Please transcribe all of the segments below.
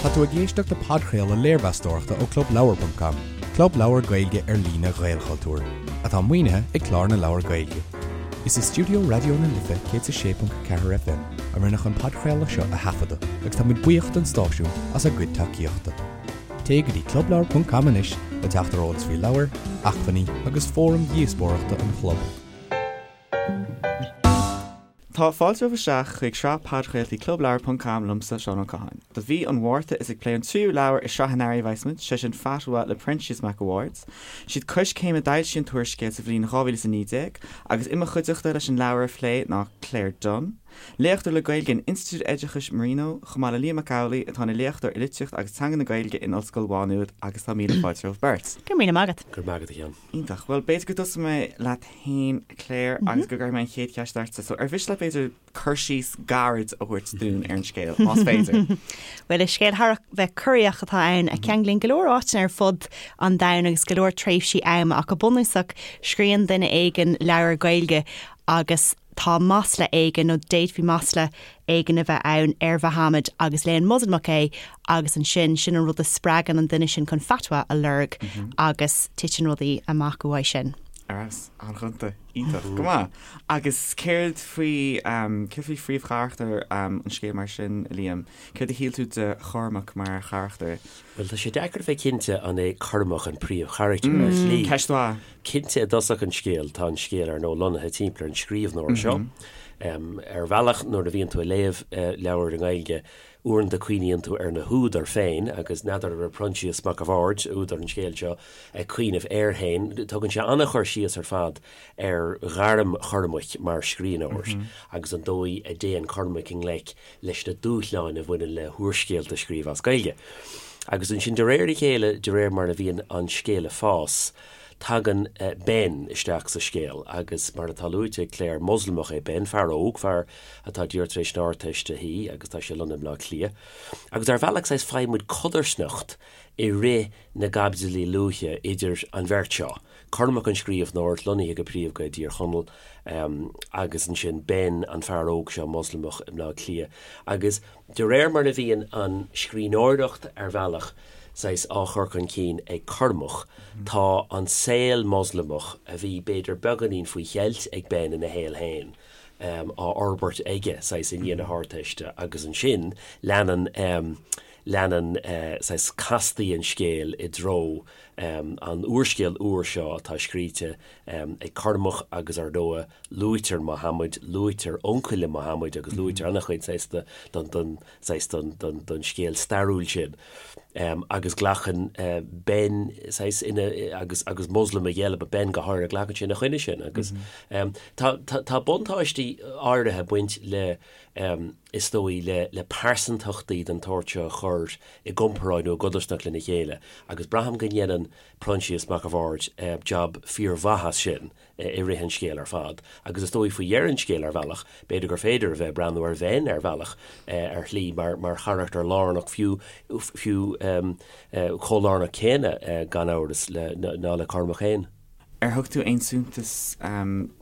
Tá tú ag éisteacht le podchraoladh léirmheastóireachta ó Clubleabhar ponc com, club leabhar Gaeilge ar líne Ghaelchultúir, atá maoinithe ag Clár na Leabhar Gaeilge. Is i stiúideo Raidió na Life 106.4 FM a rinneadh an podchraoladh seo a thaifeadadh agus tá muid buíoch don stáisiún as a gcuid tacaíochta. Téigh go dtí clubleabhar ponc com anois le teacht ar eolas faoi leabhair, acmhainní agus fóraim dhíospóireachta an chlub. Tá fáilte romhaibh isteach chuig sraith podchraoltaí Clubleabhar ponc com liomsa, Seán Ó Catháin. Do mhí an Mhárta is ag plé an tríú leabhar i sraith an earraigh a bheas muid, sé sin Fatwa le Proinsias Mac a' Bhaird. Siad Coiscéim a d'fhoilsigh an t-úrscéal sa bhliain 2019 agus i mo chuideachta leis an leabhar a phlé ná Claire Dunne, léachtóir le Gaeilge in Institiúid Oideachais Marino, chomh maith le Liam Mac Amhlaigh atá ina léachtóir i litríocht agus teanga na Gaeilge in Ollscoil Mhá Nuad agus tá míle fáilte romhaibh beirt. Go raibh míle maith agat. Go raibh maith agat a Sheáin. Iontach. Bhuel, b'fhéidir go dtosóidh mé leat féin, a Claire, agus go gcuirfidh mé an chéad cheist ortsa. So, ar mhiste leat, b'fhéidir, cur síos gairid a thabhairt dúinn ar an scéal, más féidir? Bhuel, is scéal thar a bheith corraitheach atá ann, a cheanglaíonn go leor áiteanna ar fud an domhain agus go leor tréimhsí ama, ach go bunúsach, scríobhann duine éigin leabhar Gaeilge agus tá masla éigin, nó d'fhéadfaí masla éigin a bheith ann, ar Mhuhammad agus léann Moslamach é agus ansin, sin an rud a spreagann an duine sin chun fatwa a lorg agus titeann rudaí amach uaidh sin. Ar fheabhas, an-ghonta, iontach, go maith. Agus céard faoi, céard faoi phríomhcharachtar an scéil mar sin, a Liam? Céard a shíl tú de Chormac mar charachtar? Bhuel, tá sé deacair a bheith cinnte an é Cormac an príomhcharachtar ar shlí. Ceist mhaith. Cinnte i dtosach an scéil, tá an scéal ar ndóigh lonnaithe timpeall ar an scríbhneoir seo. Ar bhealach, nuair a bhíonn tú ag léamh leabhair i nGaeilge, uaireanta cuimhníonn tú ar na húdair féin agus n'fheadar an raibh Proinsias Mac a' Bhaird, údar an scéil seo, ag cuimhneamh air féin. Tugann sé an-chur síos ar fad ar ghairm Chormaic mar scríbhneoir agus an dóigh a dtéann Cormac i ngleic leis na dúshláin a bhaineann le húrscéalta a scríobh as Gaeilge. Agus ansin de réir a chéile, de réir mar a bhíonn an scéal ag fás, tagann Ben isteach sa scéal agus mar atá luaite ag Claire, Moslamach é Ben, fear óg, fear atá díreach tar éis na hArdteiste a shuí agus tá sé lonnaithe i mBleá Cliath. Agus ar bhealach saghas faigheann muid codarsnacht i rith na gcaibidlí luaithe idir an bheirt seo, Cormac an scríbhneoir, lonnaithe go príomha i dTír Chonaill, agus ansin Ben, an fear óg seo, Moslamach i mBleá Cliath. Agus de réir mar a bhíonn an scríbhneoireacht ar bhealach saghas á chur chun cinn ag Cormac, tá an saol Moslamach, a bhí b'fhéidir beagáinín faoi cheilt ag Ben ina shaol féin, á fhorbairt aige saghas i ndiaidh na hArdteiste agus ansin leanann leanann saghas castaí an scéil i dtreo an úrscéil úr seo atá scríte ag Cormac agus ar ndóigh luaitear Mohammed, luaitear uncail le Mohammed agus luaitear an-chuid saghas den saghas den scéal stairiúil sin agus glacann Ben saghas ina agus agus Moslamaigh eile, but Ben go háirithe, glacann sé ina choinne sin agus tá tá buntáistí áirithe ag baint le is dóigh le le pearsantachtaí den tsórt seo a chur i gcomparáid nó i gcodarsnacht lena chéile agus braithim go ndéanann Proinsias Mac a' Bhaird jab fíormhaith as sin i rith an scéil ar fad agus is dóigh faoi dheireadh an scéil ar bhealach, b'fhéidir gur féidir a bheith ag breathnú ar Bhen ar bhealach, ar shlí, mar mar charachtar lárnach fiú fiú chomh lárnach céanna gan amhras le ná le Cormac féin. Ar thug tú aon suntas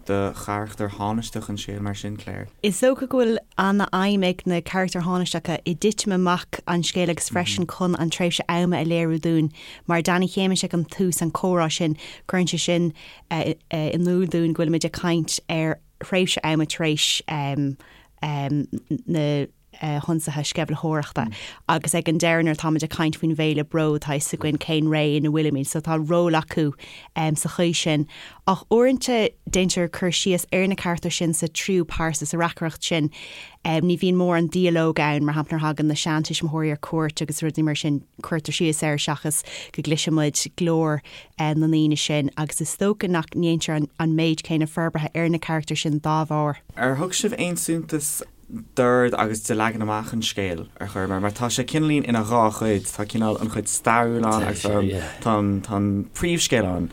do charachtar thánaisteach an scéil mar sin, Claire? Is dócha go bhfuil an-fheidhm ag na carachtair thánaisteacha i dtitim amach an scéil agus freisin chun an tréimhse ama a léiriú dúinn. Mar Danny Shéamais ag an tús, an comhrá sin, cuireann sé sin in iúl dúinn go bhfuilimid ag caint ar thréimhse ama tar éis na hionsaithe sceimhlitheoireachta agus ag an deireadh nuair atáimid ag caint faoin bhféile Bród tá fhios againn cén ré ina bhfuilimid so tá ról acu sa chaoi sin. Ach uaireanta déantar cur síos ar na carachtair sin sa tríú pearsa, sa reacaireacht sin. Ní bhíonn mórán dialóg ann, mar shampla nuair a thagann na seantuismitheoirí ar cuairt agus rudaí mar sin cuirtear síos air seachas go gcloiseann muid glór na ndaoine sin agus is dócha nach ndéantar an méid céanna forbartha ar na carachtair sin dá bharr. Ar thug sibh aon suntas d'ord agus de leagan amach an scéil ar chor ar bith, mar tá sé cineáilín ina dhá chuid, tá cineál an chuid stairiúil ann agus tá an tá an príomhscéal ann.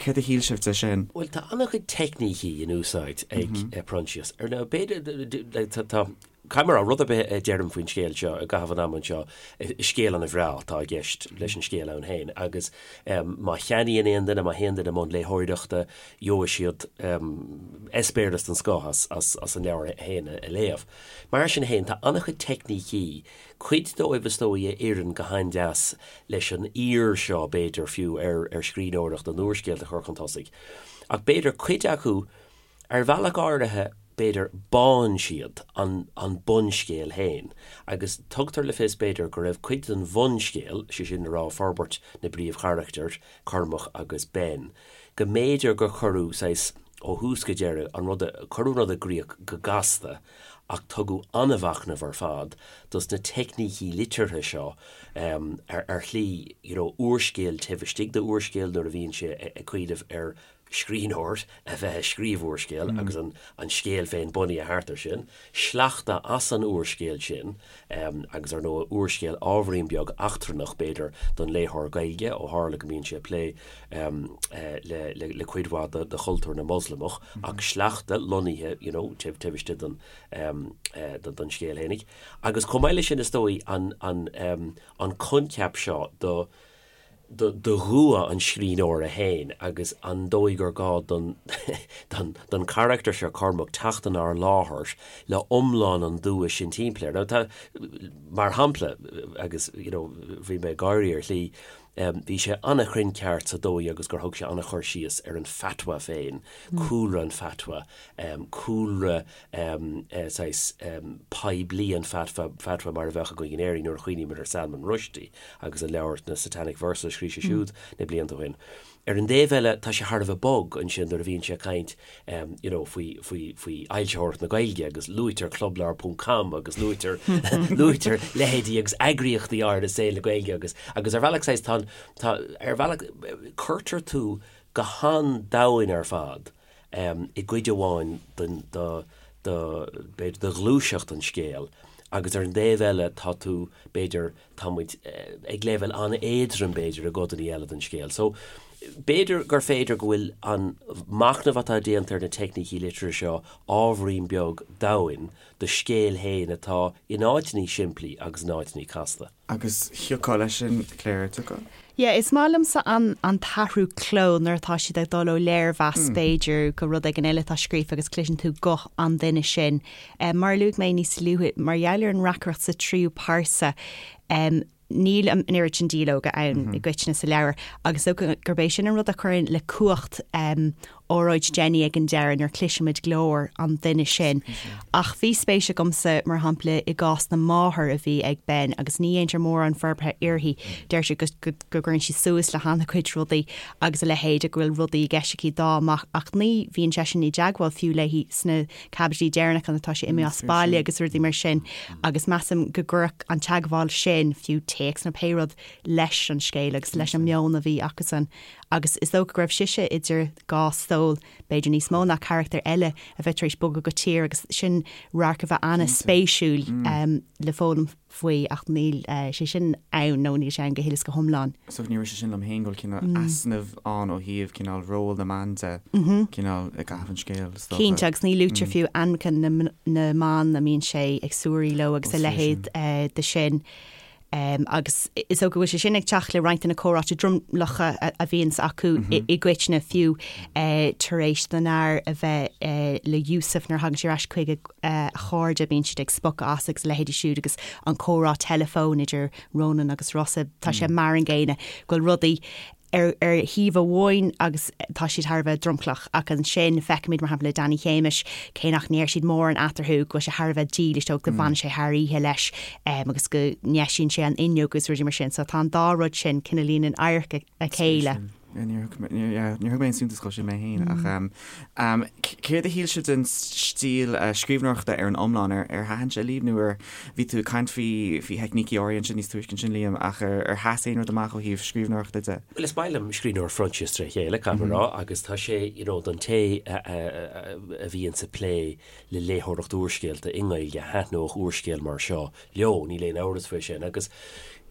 Céard a shíl sibh de sin? Bhuel, tá an-chuid teicnící in úsáid ag Proinsias. Ar ndóigh, b'fhéidir, tá. Caithfidh mé a rá, rud ar bith a deirim faoin scéal seo i gcaitheamh an ama anseo, is scéal an-bhreá atá i gceist leis an scéal ann féin agus má cheannaíonn aon duine, má théann duine i mbun léitheoireachta, gheobhaidh siad eispéireas den scoth as an leabhar féin a léamh. Mar sin féin, tá an-chuid teicnící, cuid dóibh is dóigh a oireann go han-deas leis an aoir seo b'fhéidir fiú ar scríbhneoireacht an úrscéil a chur chun tosaigh, ach b'fhéidir cuid acu Ar bhealach áirithe, b'fhéidir, bánn siad an an bunscéal féin, agus tugtar le fios, b'fhéidir, go raibh cuid den bhunscéal, sé sin le rá forbairt na bpríomhcharachtar, Cormac agus Ben, go mb'fhéidir gur cuireadh saghas, ó thús go deireadh, an rud a, cuireadh an rud i gcrích go gasta, ach tugadh an-mhachnamh ar fad dos na teicnící liteartha seo ar ar shlí, you know, úrscéal taobh istigh d'úrscéal nuair a bhíonn sé ag cuimhneamh ar scríbhneoir a bheith ag scríobh úrscéil agus an an scéal féin bunaithe thart air sin, sleachta as an úrscéal sin agus ar ndóigh úrscéal ábhairín beag eachtrannach b'fhéidir don léitheoir Gaeilge ó tharla go mbíonn sé ag plé le le le cuid mhaith de de chultúr na Moslamach ach sleachta lonnaithe you know taobh taobh istigh den den scéal fhéinig. Agus chomh maith leis sin is dóigh an an an coincheap seo do do dhua an scríbhneora féin agus an dóigh gur gá don don charachtar seo, Cormac, teacht inár láthair le iomlán an dua sin timpeall air. Now tá, mar shampla, agus you know bhí mé ag gáirí ar shlí, bhí sé an-chruinn ceart sa dóigh agus gur thug sé an-chur síos ar an fatwa féin, cúlra an fatwa, cúlra saghas poiblí an fatwa, fatwa mar a bheadh againn in Éirinn nuair a chuimhnímid ar Salman Rushdie agus an leabhar na Satanic Verses a scríobh sé siúd na blianta ó shin. Ar an dtaobh eile, tá sé thar a bheith bog ansin nuair a bhíonn sé ag caint you know faoi, faoi, faoi fhoilsitheoireacht na Gaeilge agus luaitear clubleabhar ponc com agus luaitear, luaitear leithéidí agus eagraíochtaí áirithe i saol na Gaeilge agus, agus ar bhealach saghas tá an, tá, ar bhealach cuirtear tú go han-domhain ar fad i gcuid amháin den, de, de, b'fhéidir, de ghluaiseacht an scéil agus ar an dtaobh eile tá tú, b'fhéidir, tá muid ag leibhéal an-éadrom, b'fhéidir, i gcodanna eile den scéal. So, b'fhéidir gur féidir go bhfuil an machnamh atá déanta ar na teicnící liteartha seo ábhairín beag domhain do scéal féin atá in áiteannaí simplí agus in áiteannaí casta. Agus thiocfá leis sin, Claire, thiocfá? Yeah, is maith liomsa an an t-athrú cló nuair atá siad ag dul ó léirmheas b'fhéidir go rud éigin eile atá scríofa agus cloiseann tú guth an duine sin. Mar a luaigh mé níos luaithe, mar gheall ar an reacaireacht sa tríú pearsa, níl an oiread sin dialóga ann i gcoitinne sa leabhar agus is dócha gurb é sin an rud a chuireann le cumhacht óráid Jenny ag an deireadh nuair a chloisimid glór an duine sin. Ach bhí spéis agamsa, mar shampla, i gcás na máthar a bhí ag Ben agus ní dhéantar mórán forbartha uirthi. Deir sé go gcuireann sí suas le han-chuid rudaí agus a leithéid, go bhfuil rudaí i gceist aici dá mac ach ní bhíonn seisean i dteagmháil fiú léi sna caibidlí deireanacha nuair atá sé imithe as baile agus rudaí mar sin agus measaim go gcuirfeadh an teagmháil sin, fiú téacs nó pé rud, leis an scéal agus leis an meon a bhí acusan. Agus is dócha go raibh sise idir dhá stól, b'fhéidir níos mó ná carachtar eile a bheith tar éis bogadh go tír agus sin radharc a bheith an-spéisiúil le foghlaim faoi ach níl sé sin ann nó níl sé ann go huile is go hiomlán. So ní raibh sé sin liom féin go bhfuil cineál easnamh ann ó thaobh cineál ról na mban de, cineál i gcaitheamh an scéil, is dócha. Cinnte, agus ní luaitear fiú ainmneacha na mban a mbíonn sé ag suirí leo agus a leithéid de sin. Agus is dócha go bhfuil sé sin ag teacht le roinnt de na comhráite dromlacha a bhíonns acu i gcoitinne, fiú tar éis don fhear a bheith le Yusuf nuair a thagann sé ar ais chuig a chairde, bíonn siad ag spochadh as agus a leithéidí siúd agus an comhrá teileafóin idir Ronan agus Rossa, tá sé mar an gcéanna, go bhfuil rudaí ar ar thaobh amháin agus tá siad thar a bheith dromchlach ach ansin feicimid mar shampla le Danny Shéamais cé nach ndeir siad mórán eatarthu go bhfuil sé thar a bheith dílis dó go bhfanann sé thar oíche leis agus go ndeisíonn sé an fhuinneog agus rudaí mar sin so tá an dá rud sin cineáilín in adharca a chéile. Níor thug mé aon suntas dhó sin mé féin ach céard a shíl sibh den stíl scríbhneoireachta ar an iomlán? Ar thaitin sé libh nó ar Bhí tú ag caint faoi faoi theicnící áirithe ansin níos túisce ansin, Liam, ach ar ar sheas aon rud amach ó thaobh scríbhneoireachta de? Bhuel, is maith liom scríbhneoireacht Phroinsias tré chéile, caithfidh mé a rá, agus tá sé, you know, don té a a a bhíonns ag plé le léitheoireacht úrscéalta i nGaeilge, thaitneodh úrscéal mar seo leo, níl aon amhras faoi sin. Agus.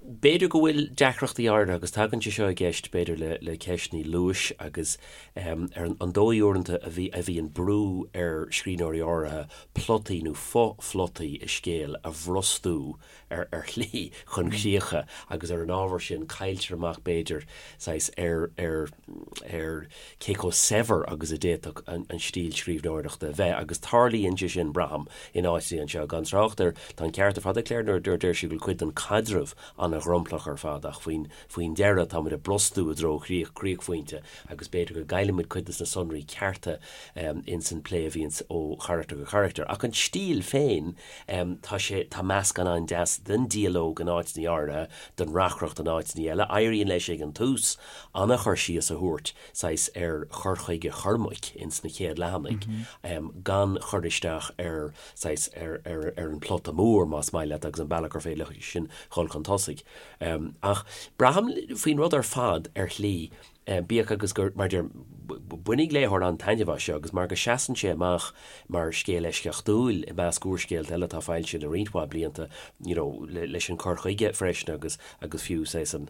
B'fhéidir go bhfuil deacrachtaí áirithe, agus tagann sé seo i gceist b'fhéidir le le ceisteanna luais agus ar an dóigh uaireanta a bhí a bhíonn brú ar scríbhneoirí áirithe plotaí nó fo-phlotaí i scéal a bhrostú ar ar shlí chun críocha agus ar an ábhar sin cailltear amach b'fhéidir saghas ar ar ar cé chomh saibhir agus a d'fhéadfadh an an stíl scríbhneoireachta a bheith agus tarlaíonn sé sin, braithim, in áiteanna anseo. Gan trácht ar, tá an ceart ar fad ag Claire nuair a deir sí go bhfuil cuid den chaidreamh an-dhromchlach ar fad ach faoin faoin deireadh táimid ag brostú i dtreo chríoch críochphointe agus b'fhéidir go gcaillimid cuid de na sonraí cearta ins an plé a bhíonns ó charachtar go carachtar. Ach an stíl féin, Tá sé, tá meascán an-deas den dialóg in áiteanna áirithe, den reacaireacht in áiteanna eile. Éiríonn leis ag an tús an-chur síos a thabhairt, saghas, ar chur chuige Chormaic ins na chéad leathanaigh, gan chur isteach ar, saghas, ar, ar, ar an plota mór, más maith leat, agus an bealach gur féidir leis sin dhul chun tosaigh. Ach braithim faoin rud ar fad, ar shlí, Bíodh agus gur, mar a deirim, bainfidh léitheoir an-taitneamh as seo agus mar go seasann sé amach mar scéal eisceachtúil i measc úrscéalta eile atá foilsithe le roinnt mhaith blianta, you know, leis an cur chuige freisin agus, agus fiú saghas an,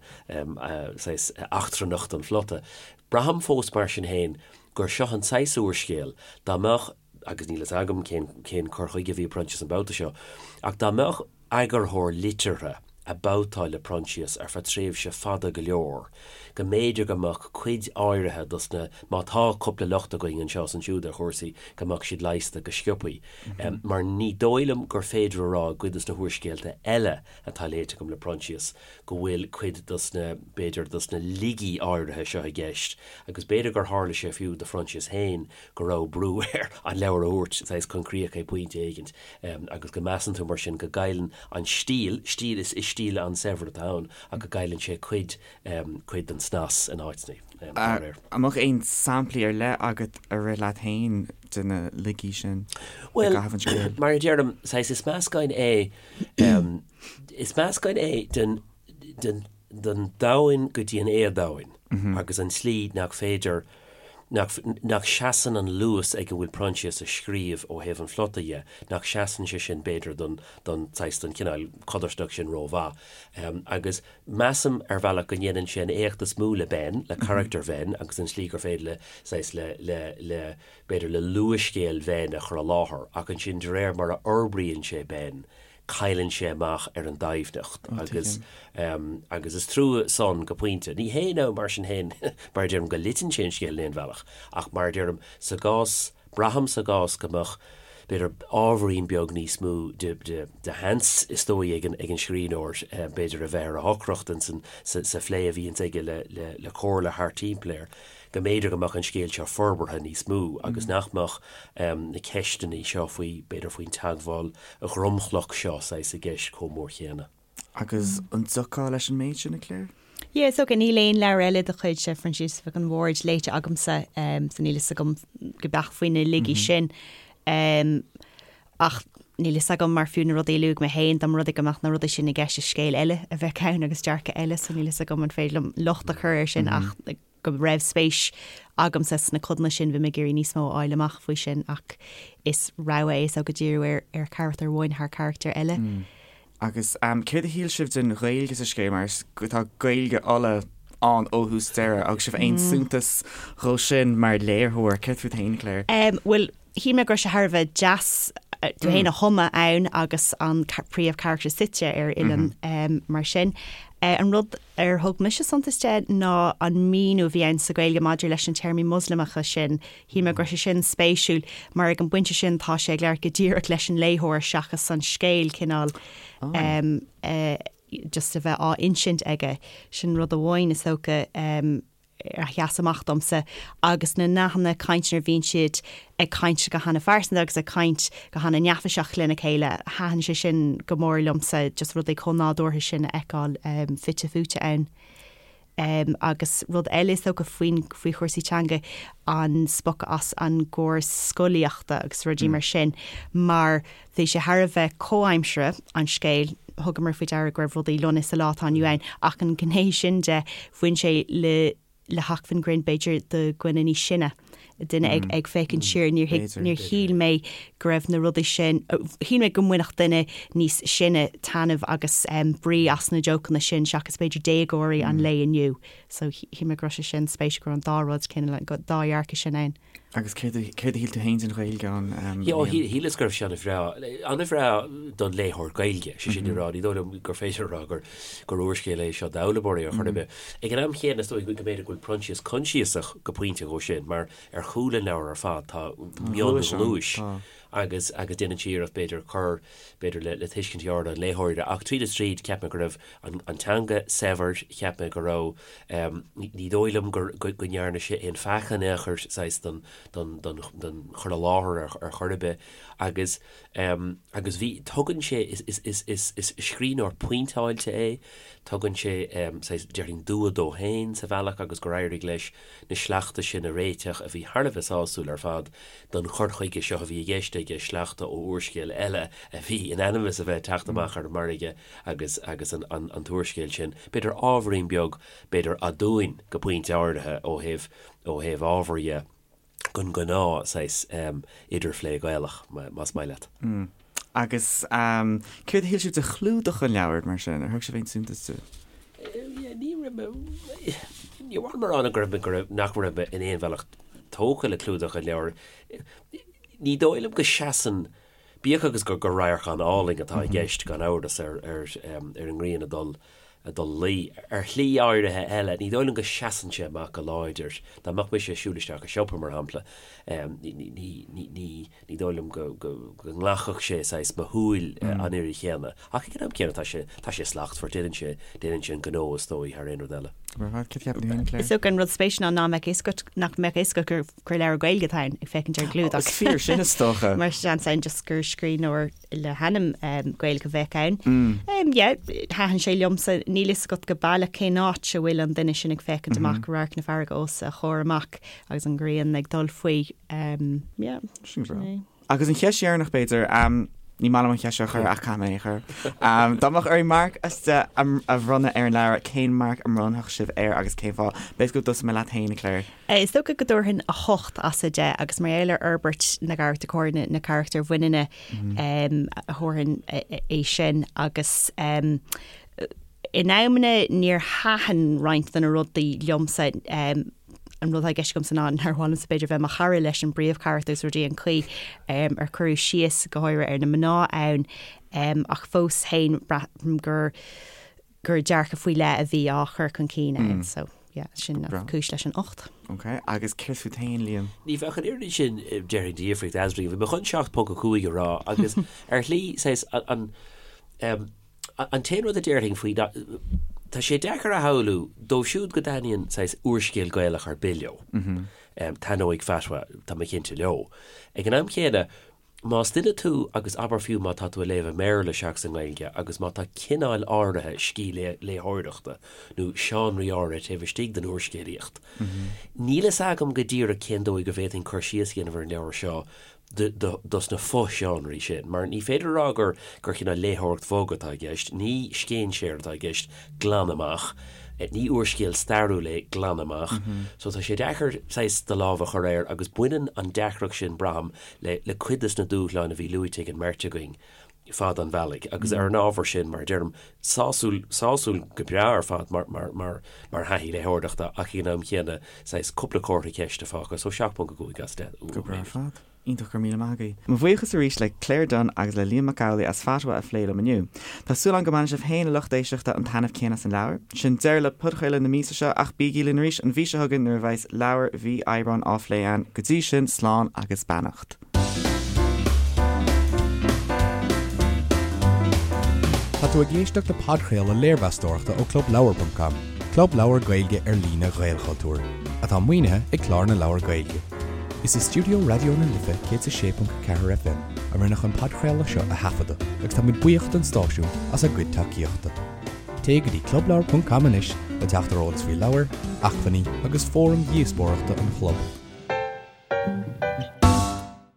saghas eachtrannacht an phlota. Braithim fós mar sin féin gur seo an saghas úrscéal, dá mbeadh, agus níl fhios agam cén, cén cur chuige a bhí ag Proinsias an babhta seo, ach dá mbeadh eagarthóir liteartha ag babhtáil le Proinsias ar feadh tréimhse fada go leor, go mb'fhéidir go mbeadh cuid áirithe dos na, má tá cúpla locht againn anseo is ansiúd ar chúrsaí, go mbeadh siad leigheasta go sciopaí. Mar ní dóigh liom gur féidir a rá i gcuid dos na húrscéalta eile atá léite agam le Proinsias go bhfuil cuid dos na, b'fhéidir, dos na laigí áirithe seo i gceist agus b'fhéidir gur tharla sé fiú do Phroinsias féin go raibh brú air an leabhar a thabhairt saghas chun críocha ag pointe éigint agus go measann tú mar sin go gcailleann an stíl, stíl, is stíl an-saibhir atá ann ach go gcailleann sé cuid, cuid den snas in áiteanna dá réir. An mbeadh aon samplaí ar leith agat a rith leat féin de na laigí sin i gcaitheamh an scéil? Bhuel, mar a deirim, saghas is meascán é, is meascán é den, den, den domhain go dtí an éadomhain agus an tslí nach féidir, nach, nach seasann an luas ag a bhfuil Proinsias ag scríobh ó thaobh an phlota dhe, nach seasann sé sin b'fhéidir don, don saghas, don chineál codarsnacht sin rómhaith. Agus measaim ar bhealach go ndéanann sé an éacht is mó le Ben, le carachtar Bhen agus an tslí gur féidir le saghas, le, le, le, b'fhéidir le luathscéal Bhen a chur i láthair ach ansin de réir mar a fhorbraíonn sé Ben, cailleann sé amach ar an doimhneacht agus agus is trua san go pointe. Ní hé nó mar sin féin, mar a deirim, go loiteann sé an scéal in aon bhealach ach mar a deirim, sa gcás, braithim sa gcás go mbeadh, b'fhéidir, ábhairín beag níos mó de de de sheans is dóigh ag an ag an scríbhneoir b'fhéidir a bheith ar a shocracht insan sa sa phlé a bhíonns aige le le le comhairle thart timpeall air. go mb'fhéidir go mbeadh an scéal seo forbartha níos mó agus nach mbeadh na ceisteanna seo faoi, b'fhéidir faoin teagmháil dhromchlach seo saghas i gceist chomh mór chéanna. Agus an dtiocfá leis an méid sin, a Claire? Yeah, is dócha. Níl aon leabhar eile de chuid Phroinsias Mhic an Bhaird léite agamsa, so níl fhios agam go beacht faoi na laigí sin. Ach níl fhios agam mar fiú na rudaí a luaigh mé féin, dá mba rud é go mbeadh na rudaí sin i gceist i scéal eile a bheadh ann agus dearcadh eile, so níl fhios agam an féidir liom locht a chur air sin ach go raibh spéis agamsa sna codanna sin, bhí mé ag iarraidh níos mó a fháil amach faoi sin ach is rogha é is dócha díriú ar ar charachtar amháin thar charachtar eile. Agus céard a shíl sibh den Ghaeilge sa scéal mar tá Gaeilge Uladh ann ó thús deireadh agus sibh aon suntas dhó sin mar léitheoir? Céard fút féin, Claire? Bhuel, Shíl mé go raibh sé thar a bheith deas tú féin a thumadh ann agus an príomhcharachtar suite ar oileán mar sin. An rud ar thug mise suntas de ná an míniú a bhí ann sa Ghaeilge maidir leis na téarmaí Moslamacha sin. Shíl mé go raibh sé sin spéisiúil mar ag an bpointe sin tá sé ag labhairt go díreach leis an léitheoir seachas an scéal cineál just a bheith á insint aige. Sin rud amháin is dócha. a sheas amach domsa agus na nathanna cainte nuair a bhíonn siad ag caint go hana-phearsanta agus ag caint go hana-neafaiseach lena chéile, thaitin sé sin go mór liomsa, just rudaí chomh nádúrtha sin a fheiceáil fite fuaite ann. Agus rud eile is dócha faoin, faoi chúrsaí teanga, an spochadh as an gcóras scolaíochta agus rudaí mar sin, mar bhí sé thar a bheith comhaimseartha, an scéal, thugamar faoi deara go raibh rudaí lonnaithe sa lá atá inniu ann, ach an ghné sin de, bhain sé le le hacmhainn grinn b'fhéidir do dhuine níos sine. Duine ag ag féachaint siar, níor thuig, níor shíl mé go raibh na rudaí sin, shíl mé go mbainfeadh duine níos sine taitneamh agus brí as na jócanna sin seachas b'fhéidir déagóirí an lae inniu. So shíl mé go raibh sé sin spéisiúil go raibh an dá rud, cineál, an dá dhearcadh sin ann. Agus céard a céard a shíl tú féin den Ghaeilge ann, Liam? Shíleas go raibh sé an-bhreá, an-bhreá don léitheoir Gaeilge, sé sin le rá, ní dóigh liom gur féidir a rá gur gur úrscéal é seo d'fhoghlaimeoirí ar chor ar bith. Ag an am chéanna, is dóigh go mb'fhéidir go bhfuil Proinsias coinsiasach go pointe dhó sin, mar ar chúl an leabhair ar fad tá mionghnúis agus agus déanann sé iarracht b'fhéidir cur b'fhéidir le le tuiscint an léitheora ach tríd is tríd cheap mé go raibh an an teanga saibhir, cheap mé go raibh ní dóigh liom gur go go ndearna sé aon pheaca in aon chor saghas don don don don chur i láthair ar ar chor ar bith agus agus bhí tugann sé is is is is is scríbhneoir pointeáilte é, tugann sé saghas déarfainn dua dó féin sa bhealach agus gur éirigh leis na sleachta sin a réiteach a bhí thar a bheith sásúil ar fad don chur chuige seo a bhí i gceist aige, sleachta ó úrscéal eile a bhí in ainm is a bheith ag teacht amach ar an margadh agus agus an an an t-úrscéal sin, b'fhéidir ábhairín beag, b'fhéidir aduain go pointe áirithe ó thaobh ó thaobh ábhair dhe den ghnáth saghas idirphlé Gaelach, más maith leat. Agus céard a shíl sibh de chlúdach an leabhair, mar sin? Ar thug sibh aon suntas dó? Ní raibh mé, ní mhaith liom a rá go raibh mé, go raibh, nach raibh mé in aon bhealach tógtha le clúdach an leabhair. Ní dóigh liom go seasann, bíodh agus gur gur radharc an-álainn atá i gceist, gan amhras, ar ar ar an ngrian ag dul ag dul a luí. Ar shlí áirithe eile, ní dóigh liom go seasann sé amach go láidir. Dá mbeadh mise ag siúl isteach i siopa, mar shampla, ní ní ní ní Ní dóigh liom go nglacfadh sé saghas mo shúil an oiread chéanna. Ach ag an am céanna tá sé, tá sé slachtmhar, déanann sé, déanann sé an gnó is dóigh thar aon rud eile. Is dócha an rud spéisiúil ná nach mbeadh fhios agat, nach mbeadh fhios agat gur, gur leabhar Gaeilge atá ann, ag féachaint ar an gclúdach. Is fíor sin is dócha. Mar seans ann just gur scríbhneoir le hainm Gaeilge a bheadh ann. Yeah, thaitin sé liomsa, níl fhios agat go baileach cén áit a bhfuil an duine sin ag féachaint amach, radharc na farraige os a chomhair amach agus an ghrian ag dul faoi. Yeah. Sin breá. Agus an cheist dheireanach b'fhéidir, ní maith liom an cheist seo a chur ach caithfidh mé é a chur. Dá mbeadh oraibh marc as 10 a bhronnadh ar an leabhar, cén marc a mbronnfadh sibh air agus cén fáth? B'fhéidir go dtosóidh mé leat féin, a Claire. Is dócha go dtabharfainn 8 as 10 agus mar gheall ar fhorbairt na gcarachtar, go háirithe na carachtair bhaineanna, a thabharfainn é sin agus in amanna níor thaitin roinnt de na rudaí liomsa. An rud atá i gceist agamsa ná nár mhaith liomsa b'fhéidir bheith mo chara leis an bpríomhcharachtar agus rudaí an chaoi ar cuireadh síos go háirithe ar na mná ann ach fós féin braithim gur gur dearcadh faoi leith a bhí á chur chun cinn ann so yeah sin an cúis leis an 8. Ok agus céard fút féin Liam? Ní bheadh an oiread sin déarfainn de dhifríocht eadrainn. Bhí mé chun 7.5 a rá agus ar shlí saghas an An t-aon rud a déarfainn faoi ná, tá sé deacair a shamhlú, dóibh siúd go dtaitníonn saghas úrscéal Gaelach ar bith leo, taitneoidh Fatwa, tá mé cinnte, leo. Ag an am chéanna, más duine tú agus abair fiú má tá tú ag léamh i mBéarla seachas i nGaeilge agus má tá cineál áirithe scil léitheoireachta nó seánraí áirithe taobh istigh den úrscéalaíocht, níl fhios agam go díreach cén dóigh go bhféadfainn cur síos a dhéanamh ar an leabhar seo dos na fo-sheánraí sin, mar ní féidir a rá gur gur cineál léitheoireacht bhog atá i gceist, ní scéinséir atá i gceist glan amach, ní úrscéal stairiúil é glan amach. So tá sé deacair saghas do lámh a chur air agus baineann an deacracht sin, braithim, le le cuid des na dúshláin a bhí luaite ag an mbeirt againn fad an bhealaigh agus ar an ábhar sin, mar a deirim, sásúil, sásúil go breá ar fad mar, mar, mar, mar thaithí léitheoireachta ach ag an am chéanna saghas cúpla comhartha ceiste fágtha, so 7.5 as 10 Go breá ar fad. Iontach, go raibh míle maith agaibh. Mo bhuíochas arís le Claire Dunne agus le Liam Mac Amhlaigh as Fatwa a phlé liom inniu. Tá súil agam go mbainfidh sibh féin, a lucht éisteachta, an taitneamh céanna as an leabhar. Sin deireadh le podchraoladh na míosa seo ach bígí linn arís an mhí seo chugainn nuair a bheas leabhar mhí Aibreáin á phlé againn. Go dtí sin, slán agus beannacht. Tá tú ag éisteacht le podchraoladh léirmheastóireachta ó ClubLeabhar.com, club leabhar Gaeilge ar líne Ghaelchultúir, atá maoinithe ag Clár na Leabhar Gaeilge. Is i stiúideo Raidió na Life 106.4 FM a rinneadh an podchraoladh seo a thaifeadadh agus táimid buíoch don stáisiún as a gcuid tacaíochta. Téigh go dtí clubleabhar.com anois le teacht ar eolas faoi leabhair, acmhainní agus fóraim dhíospóireachta an chlub.